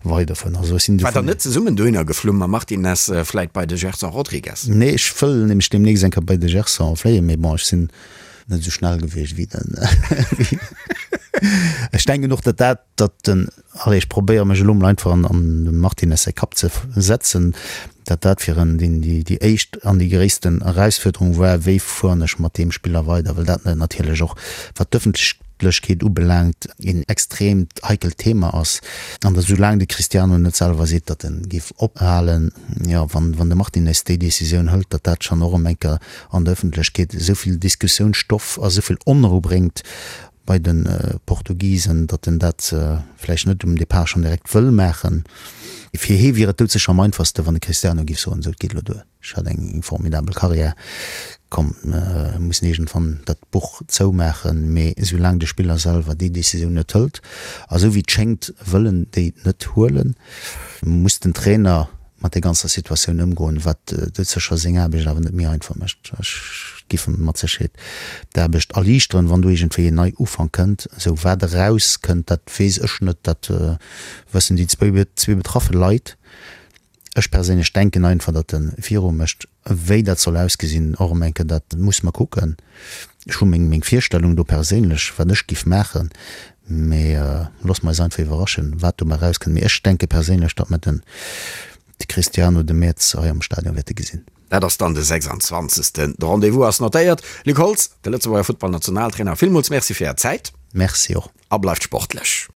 weiderfueren. Also ech sinn War der net zesummen dohinner geflunn mam Martinez, vläit bei de Gerson Rodrigues? Nee, ech wëll nämlech deemnächst eng Kéier bei de Gerson fléien, mee bon, ech sinn net esou schnell gewiescht wéi den Ech denken och, datt dat, datt den, allez, ech probéiere mech elo mol einfach an an dem Martinez säi Kapp ze setzen, datt dat fir en déi déi déi éischt an déi gréissten Erausfuerderung war, wéi fueren ech mat deem Spiller weider, well dat natierlech och, wat d'ëffentlech. Ëffentlechkeet ubelaangt, een extreemt heikelt Thema ass. An datt esoulaang de Cristiano net selwer seet, datt en géif ophalen, jo, wann de Martinez déi Decisioun hëlt, datt dat schonn och erëm eng Kéier an der Ëffentlechkeet esou vill Diskussiounsstoff a esou vill Onrou bréngt bei de Portugisen, datt en dat vläicht net um Depart schonn direkt wëll maachen. Fir hee wier et doudsécher am einfachste, wann de Cristiano géif soen, esou, et geet elo duer. Ech hat eng formidabel Karriär. Komm, mir mussen iergendwann dat Buch zoumaachen. Mee esoulaang de Spiller selwer déi Decisioun net hëlt, a sou wéi et schéngt wëll en déi net huelen, muss den Trainer mat der ganzer Situatioun ëmgoen, wat doudsécher seng Aarbecht awer net méi einfach mécht. Ech giff em mat Sécherheet d'Aarbecht erliichteren, wann do iergendwéi en Neiufank kënnt. Esou, wat erauskënnt, dat weess ech net, dat wëssen déi zwee betraffe Leit. Ech perséinlech denken einfach, datt e viru mécht. Wéi dat soll ausgesinn, och erëm eng Kéier, dat muss mer kucken. Ech hu meng meng Virstellung do perséinlech, wat ech giff maachen, mee loosse mer eis einfach iwwerraschen, wat dobäi erauskënnt. Mee ech denke perséinlech, datt mer den de Cristiano de Mäerz hei am Stadion wäerte gesinn. Dat ass dann de 26. De Rendez-vous ass notéiert. Luc Holtz, de Lëtzebuerger Futtballnationaltrainer, villmools Merci fir Är Zäit. Merci och. A bleift sportlech.